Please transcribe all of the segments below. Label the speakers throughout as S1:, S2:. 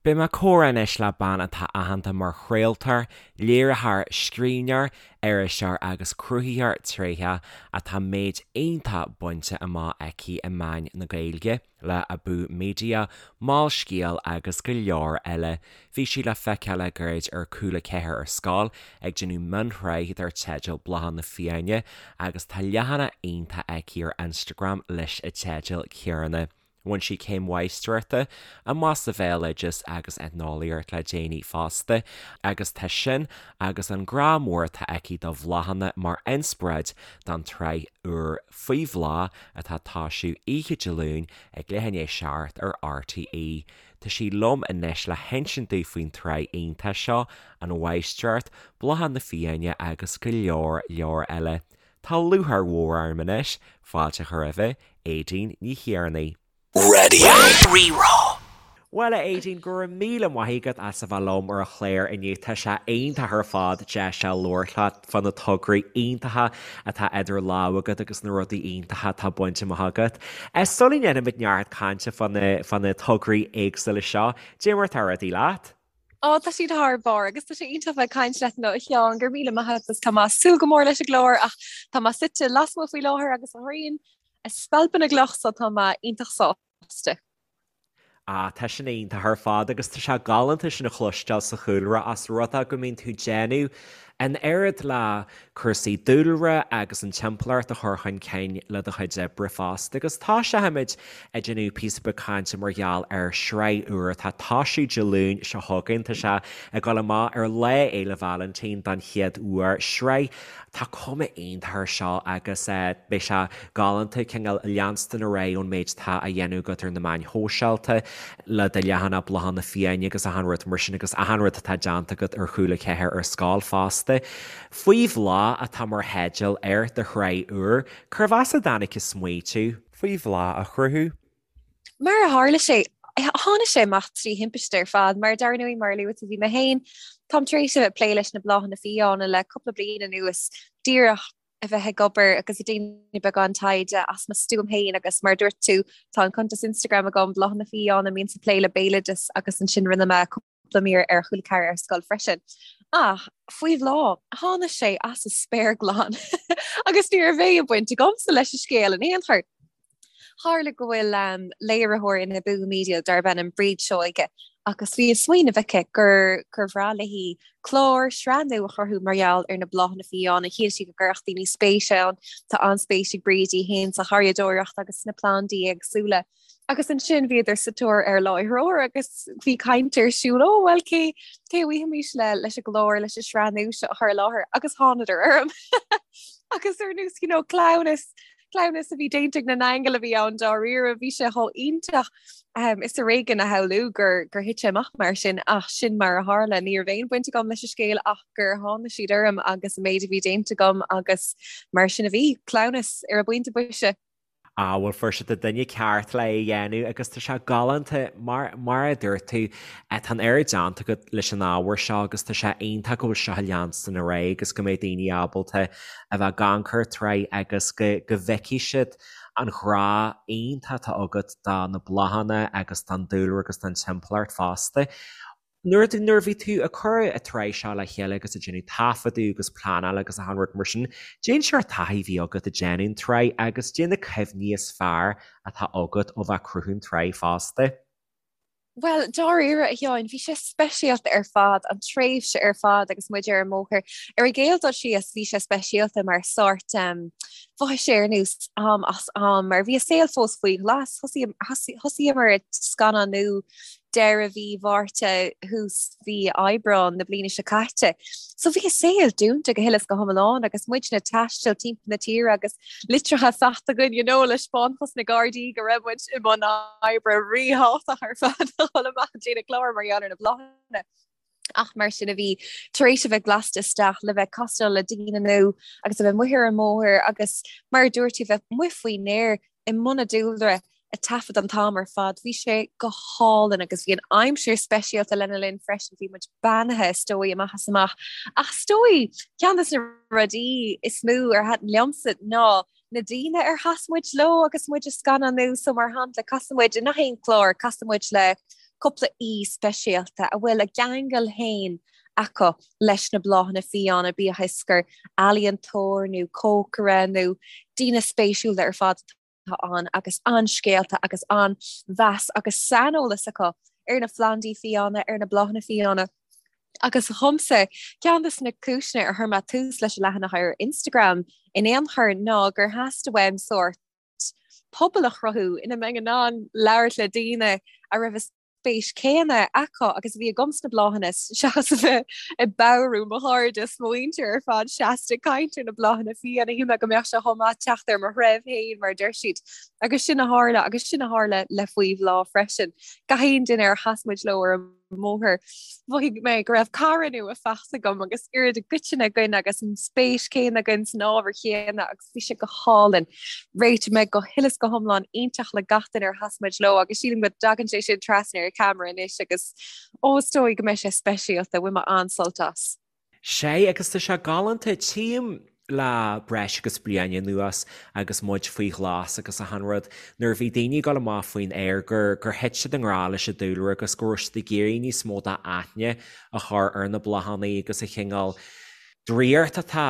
S1: Beidh mé ag comhrá anois le bean atá aitheanta mar chraoltóir, léiritheoir, scríbhneoir, iriseoir agus cruthaitheoir tréitheach atá méid iontach bainte amach aici i meáin na Gaeilge le Abú Media, Molscéal agus go leor eile. Bhí sí le feiceáil le gairid ar Cúla 4 ar Scoil ag déanamh mionshraith dar teideal Bláthanna Fiáine agus tá leathanach iontach aici ar Instagram leis an teideal céanna. Bhain sí céim mháistreachta amach sa bhéaloideas agus eitneolaíocht le déanaí fosta agus tá sin agus an grá mór atá aici do bhláthanna mar inspioráid don tsraith úr Faoi Bhláth atá ag toisiú oíche Dé Luain ag leath i ndiaidh 7 ar RTÉ. Tá sí liom anois le hinsint domh faoin tsraith iontach seo, an mháistreacht, Bláthanna Fiáine agus go leor leor eile. Tá lúcháir mhór orm anois fáilte a chur roimh Aedín Ní Thiarnaigh.
S2: Radio Rí-Rá.
S1: Bhuel, a Aedín, go raibh míle maith agat as a bheith liom ar an chlár inniu. Tá sé iontach ar fad deis a labhairt leat fá na tograí iontacha atá idir lámha agat agus na rudaí iontacha atá bainte amach agat. Sula ndéanaimid neart cainte fá na tograí éagsúla seo, cad é mar atá rudaí leat?
S3: Ó, tá siad thar barr agus tá sé iontach bheith ag caint leat inniu, a Sheáin, go raibh míle maith agat agus tá mé ag súil go mór leis an gclár ach tá mé suite lasmuigh faoi láthair agus an ghrian ag spalpadh na gcloch so tá mé iontach sásta.
S1: Ah, tá sin iontach ar fad agus tá sé galánta sin a chloisteáil sa chúlra as rud é go mbíonn tú ag déanamh an oiread le cúrsaí dúlra agus an timpeallacht a chur chun cinn le do chuid oibre fosta agus toiseochaimid ag déanamh píosa beag cainte mar gheall ar shraith úr atá ag toisiú Dé Luain seo chugainn. Tá sé ag dul amach ar Lá Fhéile Vailintín don chéad uair. Sraith Tá cuma iontach air seo agus beidh sé galánta cineál leanstan ar aghaidh ón méid atá á dhéanamh agat ar na meáin shóisialta le do leathanach Bláthanna Fiáine agus achan rud mar sin agus achan rud atá déanta agat ar Chúla 4 ar scoil fosta. Faoi Bhláth atá mar theideal ar do shraith úr. Cérbh as a dtáinig an smaoitiú Faoi Bhláth a chruthú?
S3: Mar a tharla sé, tháinig sé amach trí thimpiste ar fad, mar dar ndóigh, mar a luaigh tú, bhí mé féin, táim tar éis a bheith ag plé leis na bláthanna fiáine le cúpla bliain anuas, díreach a bheith ag obair agus ag déanamh beagán taighde as mo stuaim féin agus mar a dúirt tú, tá an cuntas Instagram agam, Bláthanna Fiáine, a mbíonns ag plé le béaloideas agus ansin rinne mé cúpla mír ar Chúla 4 ar scoil freisin. Ach faoi bhláth, tháinig sé as an spéir glan agus ní raibh aon bhaint agamsa leis an scéal in aon chor. Tharla go bhfuil léiritheoir in Abú Media darb ainm Bríd Seoige agus bhí an smaoineamh aici gur gur bhreá léi clár, sraith nua a chruthú mar gheall ar na bláthanna fiáine. Shíl sí go gcuirfeadh daoine spéis ann. Tá an-spéis ag Bríd í féin sa gharraíodóireacht agus sna plandaí éagsúla. Agus ansin bhíodar sa tóir ar láithreoir agus bhí caint ar siúl, ó bhuel cé cé a bhfaighimís le leis an gclár leis an sraith nua seo a chur i láthair agus thánadar orm. Agus ar nós you know, cleamhnas cleamhnas a bhí déanta ag na n-aingeal a bhí ann dáiríre, bhí sé chomh iontach um, is ar éigean a shamhlú gur gur thit sé amach mar sin ach sin mar a tharla. Ní raibh aon bhaint agam leis an scéal ach gur tháinig siad orm agus an méid a bhí déanta agam agus mar sin a bhí, cleamhnas ar an bpointe boise.
S1: Ah, bhuel, fuair siad an duine ceart le é a dhéanamh agus tá sé galánta, mar, mar a dúirt tú, tá an oiread déanta agat leis an ábhar seo agus tá sé iontach go bhfuil seo ag leanstan ar aghaidh agus go mbeidh daoine ábalta a bheith ag amharc ar an tsraith agus go, go bhfeicfidh siad an grá iontach atá agat do na bláthanna agus don dúlra agus don timpeallacht fosta. Nuair nuair a bhí tú ag cur an tsraith seo le chéile agus ag déanamh taifeadadh agus pleanáil agus achan rud mar sin, cén seort taithí a bhí agat ag déanamh an tsraith agus cad é na cuimhní is fearr atá agat ó bheith ag cruthú an tsraith fosta.
S3: Bhuel, dáiríre, a Sheáin, bhí sé speisialta ar fad, an tréimhse ar fad agus muid ar an mbóthar. Ar an gcéad dul síos, bhí sé speisialta mar sórt, mhothaigh sé ar nós am as am, mar bhí an saol fós faoi ghlas. Thosaíomar ag scannánú deireadh mhí Mhárta, thús mhí Aibreáin na bliana seo caite. So bhí an saol dúnta go huile is go hiomlán agus muidne ag taisteal timpeall na tíre agus litreacha faighte againn you know le 'speáint dos na Gardaí go raibh muid i mbun oibre ríthábhachtach ar fad a dhul amach ag déanamh clár mar gheall ar na bláthanna. Ach mar sin a bhí, tar éis a bheith gléasta isteach, le bheith castáil le daoine nua agus a bheith amuigh ar an mbóthar agus mar a dúirt tú, bheith amuigh faoin aer i mbun an dúlra ag taifead an t-am ar fad. Bhí sé go hálainn agus bhí an aimsir speisialta lena linn freisin, bhí muid beannaithe is dóigh amach is amach. Ach is dóigh, ceann de na rudaí is mó ar thaitin liomsa ná na daoine ar chas muid leo agus muid ag scannánú. So mar shampla, casann muid i ngach aon chlár, casann muid le. Cúpla aoi speisialta a bhfuil a gceangal féin acu leis na bláthanna fiáine, bíodh is gur ealaíontóir nó cócaire nó daoine spéisiúla ar fad atá ann agus an-scéalta agus an-mheas agus saineolas acu ar na plandaí fiáine, ar na bláthanna fiáine. Agus dhomsa, ceann de na cúiseanna ar chuir mé tús leis an leathanach ar Instagram in aon chor ná gur theastaigh uaim sórt pobal a chruthú ina mbeinn in ann labhairt le daoine a raibh an spéis chéanna acu agus a bhí agam sna bláthanna seachas a bheith ag bodhrú mo chairde is mo mhuintir ar fad seasta ag caint ar na bláthanna fiáine. Shíl mé go mbeadh sé chomh maith teacht ar mo threibh féin mar a deir siad. Agus sin a tharla agus sin a tharla le Faoi Bhláth freisin. Gach aon duine ar chas muid leo ar an mbóthar mhothaigh mé go raibh cara nua faighte agam agus oiread i gcoitinne againn agus an spéis chéanna againn san ábhar chéanna agus bhí sé go hálainn. Réitigh mé go huile is go hiomlán iontach le gach duine ar chas muid leo agus sílim go dtagann sé sin trasna ar ceamara anois agus ó is dóigh go mbeidh sé speisialta, bhain mé an-sult as.
S1: Sea, agus tá sé galánta. Tchím le breis agus bliain anuas agus muid faoi ghlas agus achan rud, nuair a bhí daoine ag dul amach faoin aer gur gur thit siad i ngrá leis an dúlra agus go raibh siad ag iarraidh níos mó d'aithne a chur ar na bláthanna agus an cineál draíocht atá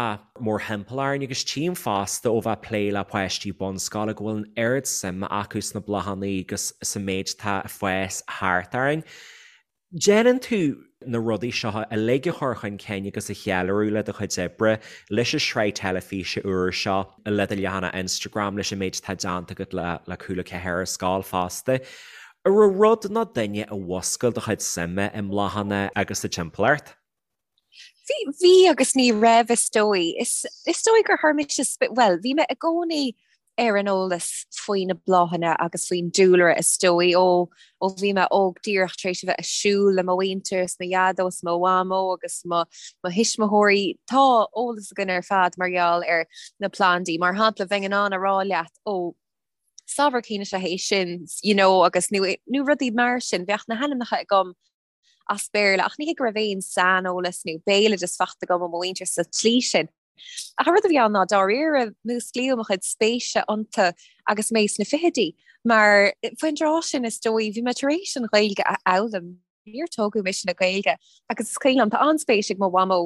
S1: mórthimpeall orainn agus tchím fosta ó bheith ag plé le páistí bunscoile go bhfuil an oiread suime acu sna bláthanna agus sa méid atá ag fás thart orainn. Déanann tú na rudaí seo uilig a chur chun cinn agus a cheiliúradh le do chuid oibre, leis an sraith teilifíse úr seo, le do leathanach Instagram, leis an méid atá déanta agat le Cúla 4 ar Scoil fosta. An raibh rud nó duine a mhúscail do chuid suime i mbláthanna agus sa timpeallacht?
S3: Bhí, bhí agus ní raibh is dóigh. Is, is dóigh gur chuir mise, bhuel, bhí mé i gcónaí ar an eolas faoi na bláthanna agus faoin dúlra is dóigh ó ó bhí mé óg díreach tar éis a bheith ag siúl le mo mhuintir is mo dhaideo is mo mhamó agus mo mo thuismitheoirí. Tá eolas againn ar fad mar gheall ar na plandaí. Mar shampla, bheinn in ann a rá leat ó sabhaircín is ea é sin, you know, agus nó nó rudaí mar sin, bheadh na hainmneacha agam as Béarla, ach ní hé go raibh aon saineolas nó béaloideas faighte agam ó mo mhuintir sa tslí sin. Ach an rud a bhí ann ná dáiríre músclaíodh mo chuid spéise iontu agus mé sna fichidí, mar faoin dtráth sin is dóigh bhí mé tar éis an Ghaeilge a fhoghlaim, níor tógadh mise le Gaeilge agus is cuimhin liom, tá an-spéis ag mo mhamó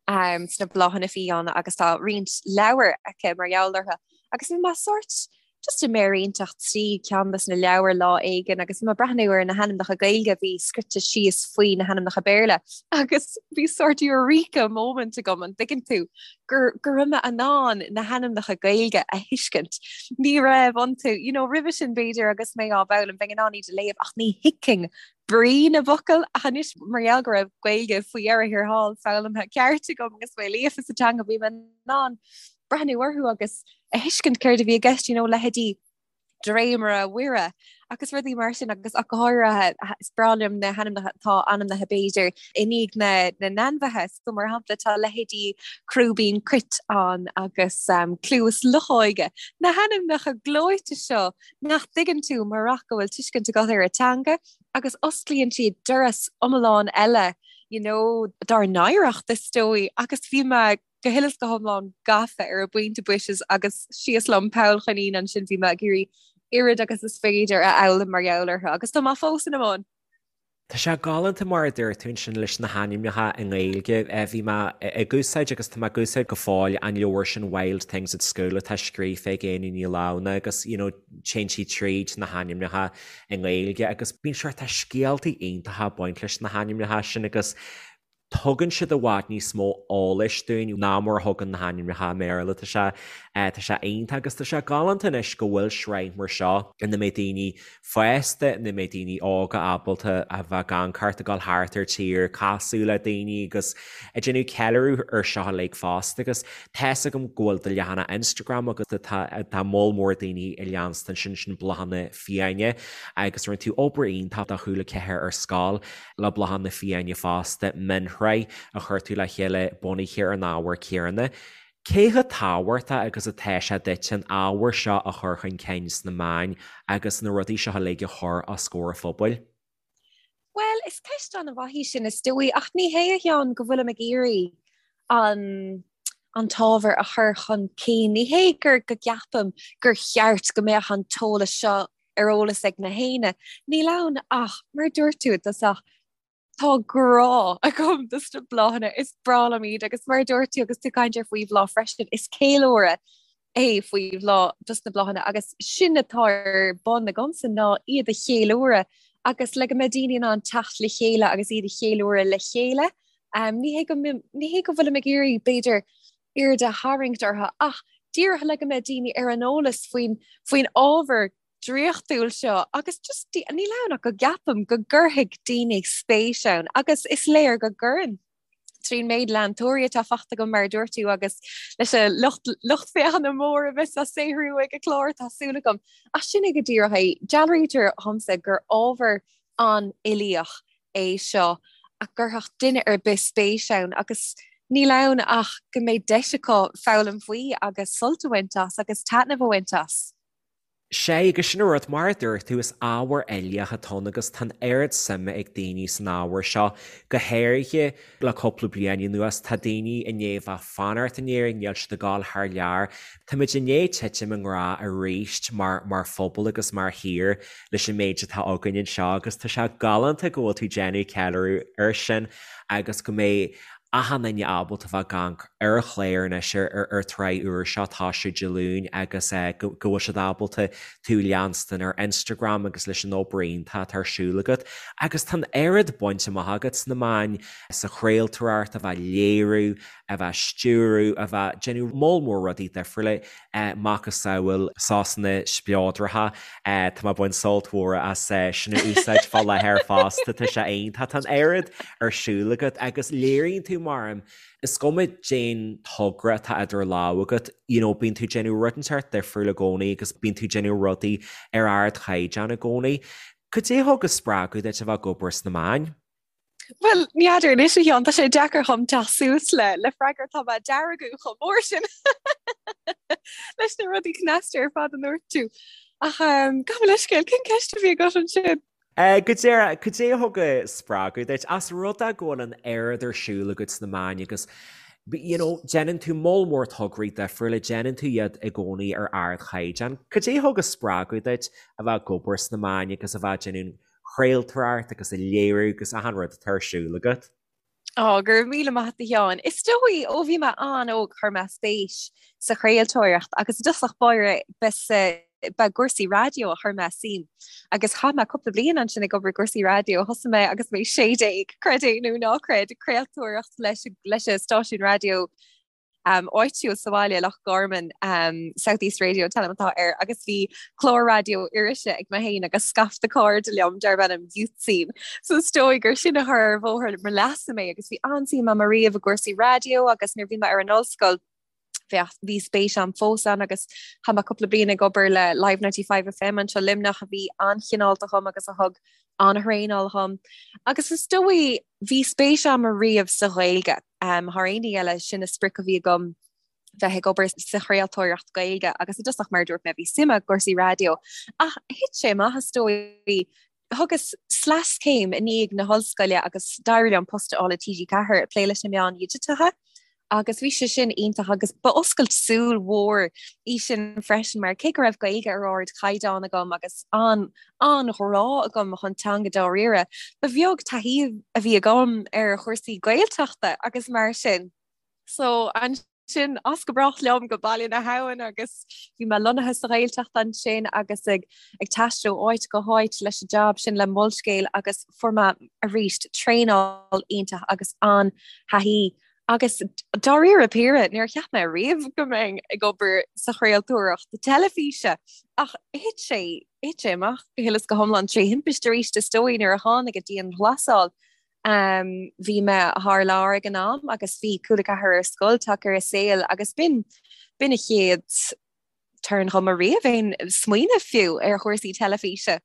S3: sna bláthanna fiáine agus tá roinnt leabhar aici mar gheall orthu agus bhí mé sórt just ag méirínteacht trí ceann de na leabhair lá éigin agus bhí mé ag breathnú ar na hainmneacha Gaeilge a bhí scrite síos faoi na hainmneacha Béarla agus bhí sórt eureka moment agam an dtuigeann tú gur go raibh mé in ann na hainmneacha Gaeilge a thuiscint. Ní raibh iontu, you know, roimhe sin b'fhéidir agus mé á bhfoghlaim bheinn in ann iad a léamh ach ní thuigfinn brí na bhfocal ach anois mar gheall go raibh Gaeilge faoi dheireadh thiar thall foghlamtha ceart agam agus mé líofa sa teanga bhí mé in ann breathnú orthu agus a thuiscint céard a bhí i gceist, you know, leithéidí Dréimire Mhuire agus rudaí mar sin agus ach go háirithe is breá liom na hainmneacha atá ainmnithe b'fhéidir i ndiaidh na na n-ainmhithe. So mar shampla tá leithéidí Crúibín Cait ann agus um, Cluas Luchóige. Na hainmneacha gleoite seo nach dtuigeann tú murach go bhfuil tuiscint agat ar an teanga agus osclaíonn siad doras iomlán eile you know, dár n-oidhreacht is dóigh agus bhí mé go huile is go hiomlán gafa ar an bpointe boise agus síos liom poll coinín ansin bhí mé ag iarraidh oiread agus is féidir a fhoghlaim mar gheall orthu agus tá mé fós ina mbun.
S1: Tá sé galánta mar a dúirt tú ansin leis na hainmneacha i nGaeilge. Bhí mé ag úsáid agus tá mé ag úsáid go fóill an leabhar sin Wild Things at School atá scríofa ag Áine Ní Lamhna agus you know téann sí tríd na hainmneacha i nGaeilge agus bíonn sórt scéaltaí iontacha ag baint leis na hainmneacha sin agus tugann siad i bhfad níos mó eolais dúinn ná mar a thugann na hainmneacha i mBéarla. Tá sé, tá sé iontach agus tá sé galánta anois go bhfuil sraith mar seo ina mbeidh daoine fásta, ina mbeidh daoine óga ábalta a bheith ag amharc, ag dul thart ar tír, casadh le daoine agus ag déanamh ceiliúradh ar seo uilig fosta agus tá's agam go bhfuil do leathanach Instagram agat atá, tá moll mór daoine ag leanstan sin, sin Bláthanna Fiáine agus rinne tú obair iontach do Chúla 4 ar Scoil. le Bláthanna Fiáine fosta, mionshraith a chuir tú le chéile bunaithe ar an ábhar céanna. Cé chomh tábhachtach agus atá sé duit an ábhar seo a chur chun cinn sna meáin agus na rudaí seo uilig a chur os comhair an phobail?
S3: Bhuel, is ceist an-mhaith í sin is dóigh, ach ní hé a Sheáin go bhfuilim ag iarraidh an an t-ábhar a chur chun cinn. Ní hé gur go gceapaim gur cheart go mbeadh an t-eolas seo. ar eolas ag na héinne. Níl ann ach, mar a dúirt tú i dtosach, tá grá agam dos na bláthanna, is breá liom iad agus mar a dúirt tú agus tú ag caint ar Faoi Bhláth freisin, is ceiliúradh é Faoi Bhláth dos na bláthanna agus sin atá ar bun agamsa ná iad a cheiliúradh agus le go mbeidh daoine in ann teacht le chéile agus iad a cheiliúradh le chéile. Ní hé go ní hé go bhfuilim ag iarraidh b'fhéidir aird a tharraingt orthu ach díreach le go mbeidh daoine ar an eolas faoin faoin ábhar draíochtúil seo agus just níl ann ach go gceapaim go gcuirfidh daoine spéis ann agus is léir go gcuireann trín méid leantóirí atá fachta agam mar a dúirt tú agus leis an lucht lucht féachana mór a bheas á saothrú ag an chlár tá súil agam. Ach sin é go díreach é, dealraítear dhomsa gur ábhar an-uilíoch é seo a gcuirfeadh duine ar bith spéis ann agus níl ann ach go mbeidh deis acu foghlaim faoi agus sult a bhaint as agus taitneamh a bhaint as.
S1: Sea, agus sin an rud, mar a dúirt tú, is ábhar uilíoch atá ann agus tá an oiread suime ag daoine san ábhar seo, go háirithe le cúpla bliain anuas, tá daoine i ndiaidh a bheith fanacht in Éirinn, níl siad ag gabháil thar lear. Táimid i ndiaidh titim i ngrá arís mar mar phobal agus mar thír leis an méid atá againn anseo agus tá sé galánta go bhfuil tú ag déanamh ceiliúradh air sin agus go mbeidh achan duine ábalta bheith ag amharc ar an chlár anois ar an tsraith úr seo, tosú Dé Luain agus go bhfuil siad ábalta tú a leanstan ar Instagram agus leis an obair iontach atá ar siúl agat. Agus tá an oiread bainte amach agat sna meáin, sa chraoltóireacht, a bheith ag léiriú, a bheith ag stiúradh, a bheith ag déanamh moll mór rudaí difriúla, macasamhail sosanna spleodracha. Tá mé ag baint sult mhór as sin a úsáid fá láthair fosta, tá sé iontach. Tá an oiread ar siúl agat agus léiríonn tú mar, is cuma cén togra atá idir lámha agat, you know, bíonn tú ag déanamh rud inteacht difriúil i gcónaí agus bíonn tú ag déanamh rudaí ar ardchaighdeán i gcónaí. Cad é a thug an spreagadh duit a bheith ag obair sna meáin?
S3: Bhuel, ní fheadar anois a Sheáin, tá sé deacair dhom teacht suas le le freagra, tá mé ag deargadh chomh mór sin leis na rudaí cneasta ar fad a ndúirt tú. Ach um, gabh mo leithscéal, cén ceist a bhí agat ansin?
S1: Uh, go díreach, cad é a thug an spreagadh duit as rud é go bhfuil an oiread ar siúl agat sna meáin agus you know, déanann tú moll mór tograí difriúla, déanann tú iad i gcónaí ar ardchaighdeán. Cad é a thug an spreagadh duit a bheith ag obair sna meáin agus a bheith ag déanamh chraoltóireacht agus ag léiriú agus achan rud atá ar siúl agat.
S3: Ó, go raibh míle maith agat a Sheáin. Is dóigh, ó bhí mé an-óg chuir mé spéis sa chraoltóireacht agus i dtosach báire ba sa ba i gcúrsaí raidió a chuir mé suim agus chaith mé cúpla bliain ansin ag obair i gcúrsaí raidió. Thosaigh mé agus mé 16, creid é nó ná creid, ag craoltóireacht leis leis an stáisiún raidió áitiúil sa bhaile, Loch Garman, South East Radio an t-ainm atá air, agus bhí clár raidió irise ag mé féin agus scaifte cairde liom darb ainm Youth Scene. So is dóigh gur sin a chuir ar bhóthar mo leasa mé agus bhí an-suim agam ariamh i gcúrsaí raidió agus nuair bhí mé ar an ollscoil bhí spéis agam fós ann agus chaith mé cúpla bliain ag obair le Live 95 FM anseo Luimneach a bhí an-chineálta dhom agus a thug an-thraenáil dhom. Agus is dóigh bhí spéis agam ariamh sa Ghaeilge. Thar aon ní eile, sin an sprioc a bhí agam bheith ag obair sa chraoltóireacht Gaeilge agus i dtosach mar a dúirt mé bhí suim i gcúrsaí raidió ach thit sé amach is dóigh thugas sleaschéim i ndiaidh na hollscoile agus d'éirigh liom post a fháil i TG4 ag plé leis na meáin dhigiteacha agus bhí sé sin iontach agus ba oscailt súl mhór í sin freisin mar cé go raibh Gaeilge ar ardchaighdeán agam agus an an-ghrá agam chun teanga dáiríre. Ba bheag taithí a bhí agam ar chúrsaí Gaeltachta agus mar sin. So ansin as go brách liom go Baile na hAbhann agus bhí mé lonnaithe sa Ghaeltacht ansin agus ag ag taisteal ó áit go háit leis an jab sin le Molscéal agus fuair mé arís traenáil iontach agus an-thaithí Agus dáiríre píre, níor cheap mé riamh go mbeinn ag obair sa chraoltóireacht teilifíse, ach thit sé, thit sé amach go huile is go hiomlán trí thimpiste arís is dóigh nuair a tháinig an dianghlasáil. Bhí mé thar lear ag an am agus bhí Cúla 4 ar Scoil tagtha ar an saol agus b'in, b'in an chéad turn dhom ariamh aon smaoineamh fiú ar chúrsaí teilifíse.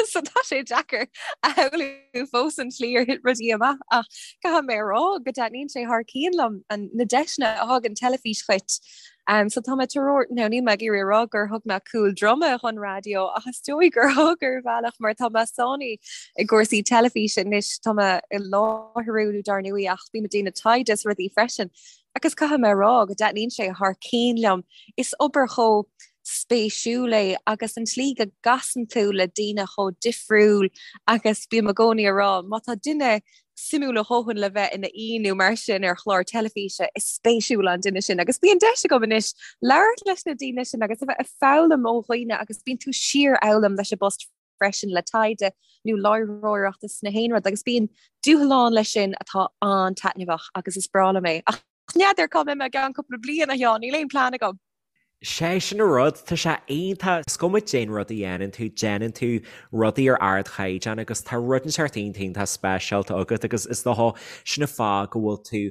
S3: So tá sé deacair a shamhlú fós an tslí ar thit rudaí amach ach caithfidh mé a rá go dtaitníonn sé thar cionn liom an na deiseanna a thugann teilifís dhuit. Um, so tá mé tar nó níl mé ag iarraidh a rá gur thug mé cúl droma chun raidió ach is dóigh gur thug ar bhealach mar tá mé sáinnithe i gcúrsaí teilifíse anois tá mé ag láithriú dar ndóigh ach bím ag déanamh taighde is rudaí freisin. Agus caithfidh mé a rá go dtaitníonn sé thar cionn liom. Is obair chomh. spéisiúil é agus an tslí go gcasann tú le daoine chomh difriúil agus bím i gcónaí ag rá má tá duine suimiúil a dhóthain le bheith ina aoi nó mar sin ar chlár teilifíse, is spéisiúil an duine sin agus bíonn deis agam anois labhairt leis na daoine sin agus a bheith ag foghlaim ó dhaoine agus bíonn tú síorfhoghlaim leis an bpost freisin le taighde nó láithreoireacht is na haon rud agus bíonn dúshlán leis sin atá an-taitneamhach agus is breá liom é. Ach n'fheadar cá mbeidh mé i gceann cúpla bliain, a Sheáin, níl aon plean agam.
S1: Sé sin an rud, tá sé iontach, is cuma cén rud a dhéanann tú, déanann tú rudaí ar ardchaighdeán agus tá rud inteacht iontach iontach speisialta agat agus is dócha sin an fáth go bhfuil tú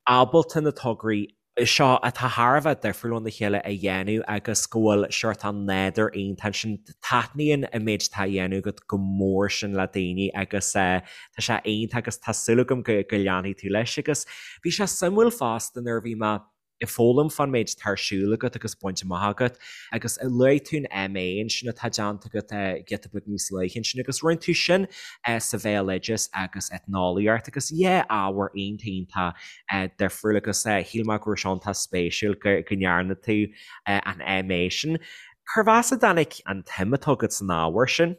S1: ábalta na tograí seo atá thar a bheith difriúil óna chéile a dhéanamh agus go bhfuil seort an nádúr iontach ansin. Taitníonn an méid atá á dhéanamh agat go mór sin le daoine agus tá sé iontach agus tá súil agam go leanfaidh tú leis agus bhí sé suimiúil fosta nuair a bhí mé ag foghlaim fán méid atá ar siúl agat agus bainte amach agat agus luaigh tú an MA ansin atá déanta agat giota beag níos luaithe ansin agus rinne tú sin sa bhéaloideas agus eitneolaíocht agus yeah ábhar iontach iontach difriúil agus shíl mé go raibh sé iontach spéisiúil go ndearna tú an MA sin. Cérbh as a dtáinig an tsuim atá agat san ábhar sin?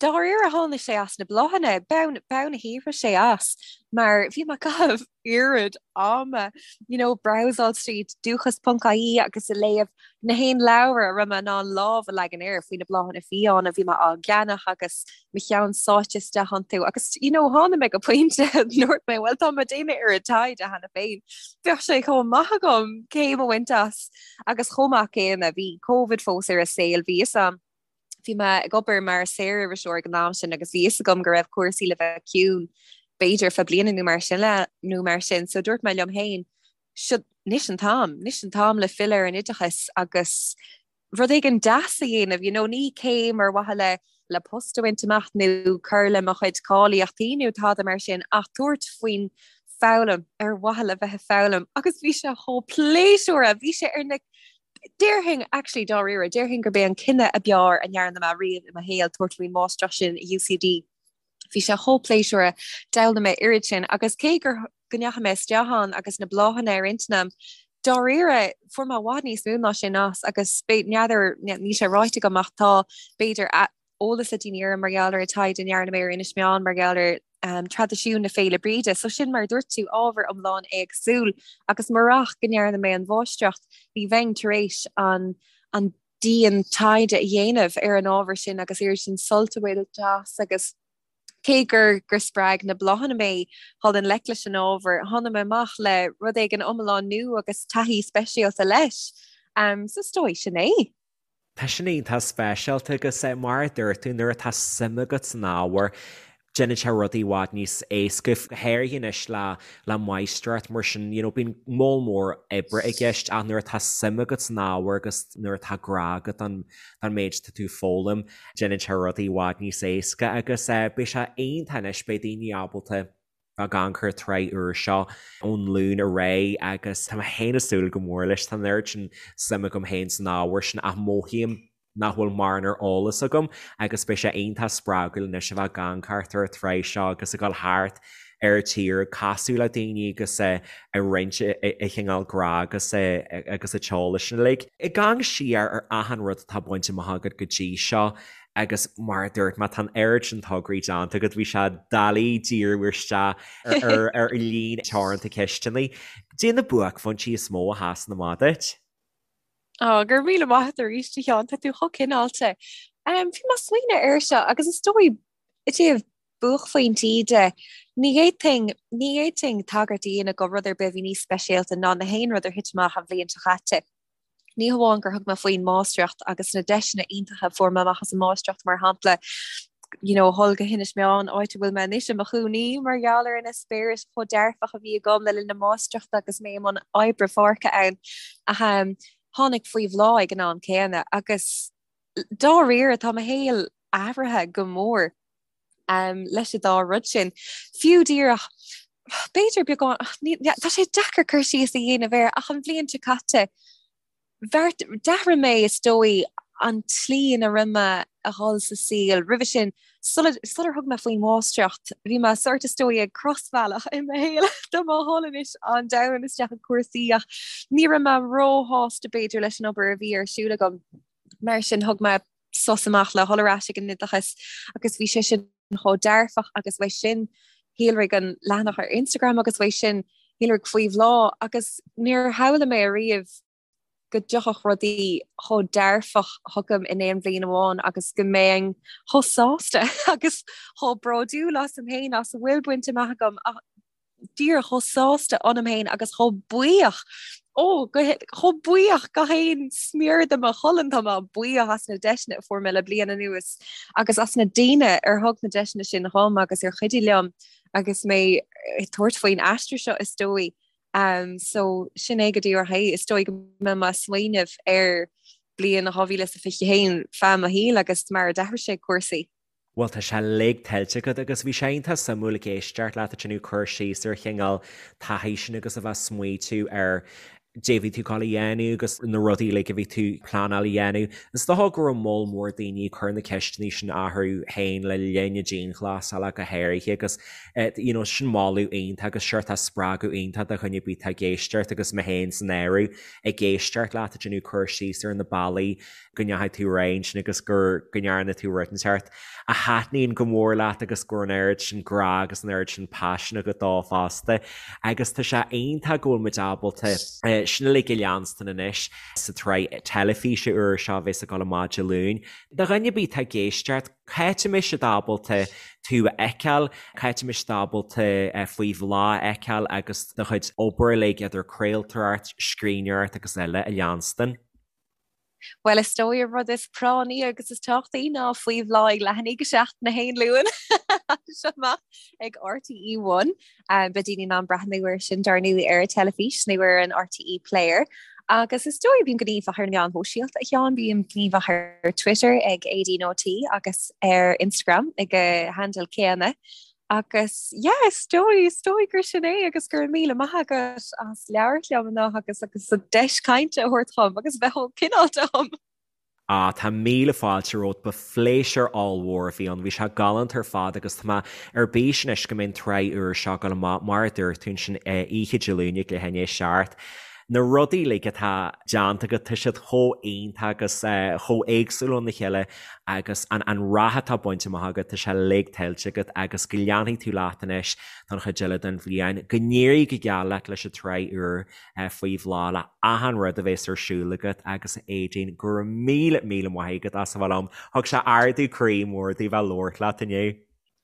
S3: Dáiríre tháinig sé as na bláthanna, bonn a shíothraigh sé as, mar bhí mé ag caitheamh oiread ama, you know, browsáil tríd dúchas ponc ie agus ag léamh na haon leabhar a raibh mé in ann lámh a leagan air faoi na bláthanna fiáine, bhí mé á gceannach agus mo cheann sáite isteach iontu agus, you know, tháinig mé go pointe ndúirt mé, bhuel tá mé ag déanamh oiread taighde cheana féin, bheadh sé chomh maith agam céim a bhaint as agus chomh maith céanna bhí Covid fós ar an saol, bhí fhios a'm. Bhí mé ag obair mar saoririseoir ag an am sin agus bhí fhios agam go raibh cúrsaí le bheith ciúin b'fhéidir feadh bliana nó mar sin nó mar sin so dúirt mé liom féin seo anois an t-am, anois an t-am le filleadh ar an oideachas agus rud éigin deas a dhéanamh, you know, ní céim ar mhaithe le le post a bhaint amach nó cur le mo chuid cáilíochtaí nó tada mar sin ach tabhairt faoin foghlaim ar mhaithe le bheith ag foghlaim agus bhí sé chomh pléisiúrtha, bhí sé ar na Déarfainn, actually, dáiríre, déarfainn gurb é an cinneadh ab fhearr a ndearna mé riamh i mo shaol tabhairt faoin máistreacht sin i UCD. Bhí sé chomh pléisiúrtha, d'fhoghlaim mé oiread sin agus cé gur go ndeachaigh mé isteach ann agus na bláthanna ar intinn a'm, dáiríre, fuair mé i bhfad níos mó ná sin as agus n'fheadar, níl sé ráite agam ach tá, b'fhéidir, eolas ag daoine orm mar gheall ar an taighde a ndearna mé ar Inis Meáin mar gheall ar traidisiún na Féile Bríde. So sin mar a dúirt tú, ábhar iomlán éagsúil agus murach go ndearna mé an mháistreacht ní bheinn tar éis an an dian taighde a dhéanamh ar an ábhar sin agus oiread sin sult a bhaint as agus cé gur gur spreag na bláthanna mé dhul i ngleic leis an ábhar, tháinig mé amach le rud éigin iomlán nua agus taithí speisialta leis. Um, so is dóigh sin é.
S1: Tá sin iontach speisialta agus mar a dúirt tú, nuair atá suim agat san ábhar, déanann sé rudaí i bhfad níos éasca, go háirithe anois le le máistreacht mar sin, you know, bíonn moll mór oibre i gceist ach nuair atá suim agat san ábhar agus nuair atá grá agat don don méid atá tú ag foghlaim, déanann sé rudaí i bhfad níos éasca agus beidh sé iontach anois, beidh daoine ábalta ag amharc ar an tsraith úr seo ón Luan ar aghaidh agus tá mé féin ag súil go mór leis. Tá an oiread sin suim agam féin san ábhar sin ach mothaím nach bhfuil mórán ar eolas agam agus beidh sé iontach spreagúil anois a bheith ag amharc ar an tsraith seo agus ag dul thart ar an tír ag casadh le daoine agus ag roinnt an chineál grá agus agus an t-eolas sin uilig. Ag amharc siar ar achan rud atá bainte amach agat go dtí seo, Agus mar a dúirt mé, tá an oiread sin tograí déanta agat, bhí sé doiligh díriú isteach ar líon teoranta ceisteanna. Cad é na buaicphointí is mó a sheasann amach duit?
S3: Ó, go raibh míle maith agat arís, a Sheáin, tá tú chomh cineálta. Bhí mé ag smaoineamh air seo agus is dóigh i dtaobh buaicphointí de, ní fhéadfainn, ní fhéadfainn tagairt a dhéanamh go rud ar bith a bhí níos speisialta ná na haon rud ar thit amach an bhliain seo chaite. Ní hamháin gur thug mé faoin máistreacht agus na deiseanna iontacha a fuair mé amach as an máistreacht, mar shampla, you know, dhul go hInis Meáin, áit a bhfuil mé anois i mo chónaí, mar gheall ar an eispéireas chomh dearfach a bhí agam le linn na máistreachta agus mé i mbun oibre pháirce ann, ach tháinig Faoi Bhláth ag an am céanna agus dáiríre tá mo shaol athraithe go mór. leis an dá rud sin. Fiú díreach, b'fhéidir beagán, tá sé deacair cur síos a dhéanamh air ach an bhliain seo caite, d'athraigh mé is dóigh. an tslí ina raibh mé a dhul sa saol roimhe sin, sular thug mé faoin mháistreacht, bhí mé sórt is dóigh ag crosbhealach i mo shaol, tá mé a dhul anois an-domhain isteach i cúrsaí ach ní raibh mé róshásta b'fhéidir leis an obair a bhí ar siúl agam. Mar sin thug mé sos amach le dhul ar ais ag an oideachas agus bhí sé sin chomh dearfach agus uaidh sin shíolraigh an leathanach ar Instagram agus uaidh sin shíolraigh Faoi Bhláth agus níor shamhlaigh mé ariamh go dtiocfadh rudaí chomh dearfach chugam in aon bhliain amháin agus go mbeinn chomh sásta agus chomh bródúil asam féin as a bhfuil bainte amach agam ach díreach chomh sásta ionam féin agus chomh buíoch ó chomh buíoch gach aon smior de mo cholainn tá mé buíoch as na deiseanna a fuair mé le bliain anuas agus as na daoine ar thug na deiseanna sin dhom agus ar chuidigh liom agus mé ag tabhairt faoin aistear seo is dóigh. Um, so sin é go díreach é, is dóigh go mbeidh mé ag smaoineamh ar bliain 2021 feadh mo shaoil agus mar a d'athraigh sé cúrsaí.
S1: Bhuel tá sé uilig tuillte agat agus bhí sé iontach suimiúil ag éisteacht leat ag déanamh cur síos ar chineál taithí sin agus a bheith smaoitiú ar caidé a bhí tú ag gabháil a dhéanamh agus na rudaí uilig a bhí tú pleanáil a dhéanamh. Is dócha go raibh moll mór daoine ag cur na ceisteanna sin orthu féin le linn na dianghlasála go háirithe agus you know, sin moladh iontach agus seort spreagadh iontach do dhuine ar bith atá ag éisteacht agus mé féin san áireamh ag éisteacht leat ag déanamh cur síos ar na bealaí go ndeachaigh tú ar aghaidh ansin agus gur go ndearna tú rud inteacht a thaitníonn go mór leat agus go raibh an oiread sin grá agus an oiread sin paisin agat dó fosta agus tá sé iontach go bhfuil muid ábalta sin uilig a leanstan anois sa tsraith teilifíse úr seo a bheas ag dul amach Dé Luain. Do dhuine ar bith atá ag éisteacht, Cá háit a mbeidh siad ábalta tú a fheiceáil, cá háit a mbeidh siad ábalta Faoi Bhláth a fheiceáil agus do chuid obair uilig idir craoltóireacht, scríbhneoireacht agus eile a leanstan.
S3: Bhuel, is dóigh an rud is práinní agus is tábhachtaí ná Faoi Bhláth ag leath i ndiaidh 7 na haon Luan seo amach ag RTÉ One. Beidh daoine in ann breathnú air sin dar ndóigh ar an teilifís nó ar an RTÉ Player. Agus is dóigh bím gníomhach ar na meáin shóisialta a Sheáin, bím gníomhach ar Twitter ag Aedín OT agus ar Instagram ag an handle céanna. Agus yeah, is dóigh, is dóigh gur sin é agus go raibh míle maith agat as labhairt liom inniu agus agus an deis cainte a thabhairt dhom agus bheith chomh cineálta dhom.
S1: Ah, tá míle fáilte romhat, ba phléisiúr ollmhór a bhí ann, bhí sé galánta ar fad agus tá mé ar bís anois go mbeidh an tsraith úr seo ag dul amach, mar a dúirt tú ansin, oíche Dé Luain ag leath i ndiaidh 7. Na rudaí uilig atá déanta agat, tá siad chomh iontach agus chomh éagsúil óna chéile agus an rath atá bainte amach agat, tá sé uilig tuillte agat agus go leanfaidh tú leat anois don chuid eile den bhliain. Go n-éirí go geal leat leis an tsraith úr. Faoi Bhláth le achan rud a bhéas ar siúl agat agus a Aedín, go raibh míle míle maith agat as a bheith liom. Thug sé ardú croí mór domh bheith ag labhairt leat inniu.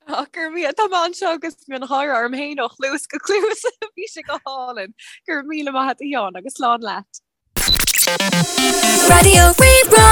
S3: Ach go raibh míle, tá mé anseo agus miongháire orm féin ó chluas go cluas, bhí sé go hálainn. Go raibh míle maith agat a Sheáin agus slán leat.
S2: Raidió Rí-Rá.